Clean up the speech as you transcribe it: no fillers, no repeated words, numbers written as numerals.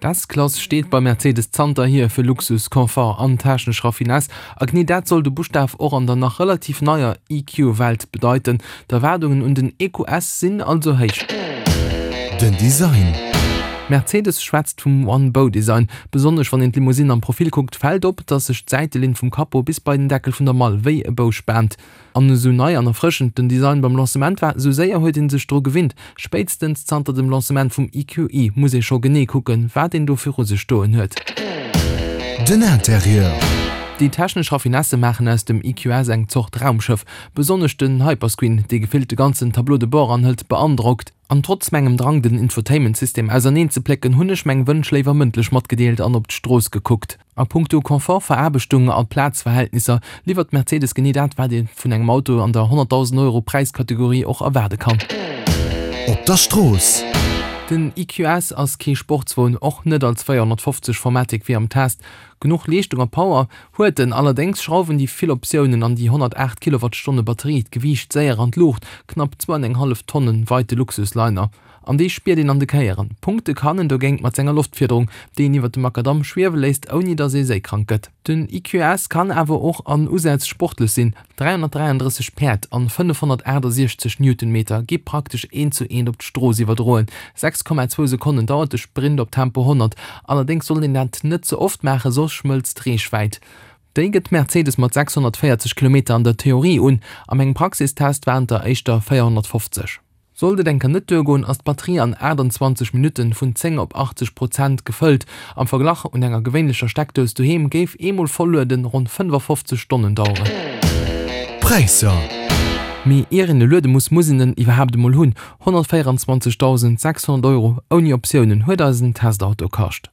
D'S-Klass steet bei Mercedes zanterhier fir Luxus, Confort an technesch Raffinesse. A genee dat soll de Buschtaf och an der nach relativ neier EQ-Welt bedeiten. D'Erwaardungen un den EQS sinn also héich. Den Design. Mercedes schwätzt vum One-Bow-Design. Besonnesch wann een d'Limousine am Profil kuckt, fält op, dass sech d'Säitelinn vum Capot bis bei den Deckel vun der Mall wéi e Bou spaant. An esou nei an erfrëschend den Design beim Lancement war, esou séier huet ee sech dru gewinnt. Spéitstens zanter dem Lancement vum EQE muss ee scho genee kucken, wat een do viru sech stoen huet. Den Interieur. Déi technesch Raffinesse maachen aus dem EQS eng Zort Raumschëff. Besonnesch den Hyperscreen, dee gefillt de ganzen Tableau de bord anhëlt, beandrockt. An trotz mengem Drang den Infotainment-System auserneen ze plécken, hunn ech meng Wënsch léiwer mëndlech matgedeelt an op d'Strooss gekuckt. A puncto Confort, Veraarbechtung a Plazverhältnisser liwwert Mercedes genee dat, wat ee vun engem Auto an der 100.000 Euro Präiskategorie och erwaarde kann. Op der Strooss. Den EQS ass kee Sportswon, och net als 450 Formatic wéi am Test. Genuch Leeschtung a Power huet en, allerdéngs schrauwen déi vill Optiounen an déi 108 Kilowattstonne Batterie d'Gewiicht séier an d'Luucht, knapp zwou an eng hallef Tonne weit de Luxusliner. An déi spiert een an de Kéieren. Punkte kann en dogéint mat senger Loftfiederung, déi een iwwer de Makadamm schwiewe léisst, ouni datt ee séikrank gëtt. Den EQS kann awer och an Usätz sportlech sinn, 333 Päerd an 568 Newtonmeter gi praktesch eent zu eent op d'Strooss iwwerdroen. 6,2 Sekonnen dauert de Sprint op Tempo 100. Allerdéngs sollt een dat net ze oft maachen, soss schmëlzt d'Reechwäit. Déi gëtt Mercedes mat 640 Kilometer an der Theorie un, a mengem Praxistest waren et der éischter 450. Sollt et eng Kéier net duergoen, ass d'Batterie an 28 Minutten vun 10 op 80 Prozent gefëllt. Am Verglach, un enger gewéinlecher Steckdous doheem géif eemol voll-lueden ronn 55 Stonnen daueren. Präisser. Mee ier een e luede muss, muss een en iwwerhaapt emol hunn. 124.600 Euro ouni Optiounen huet eisen Testauto kascht.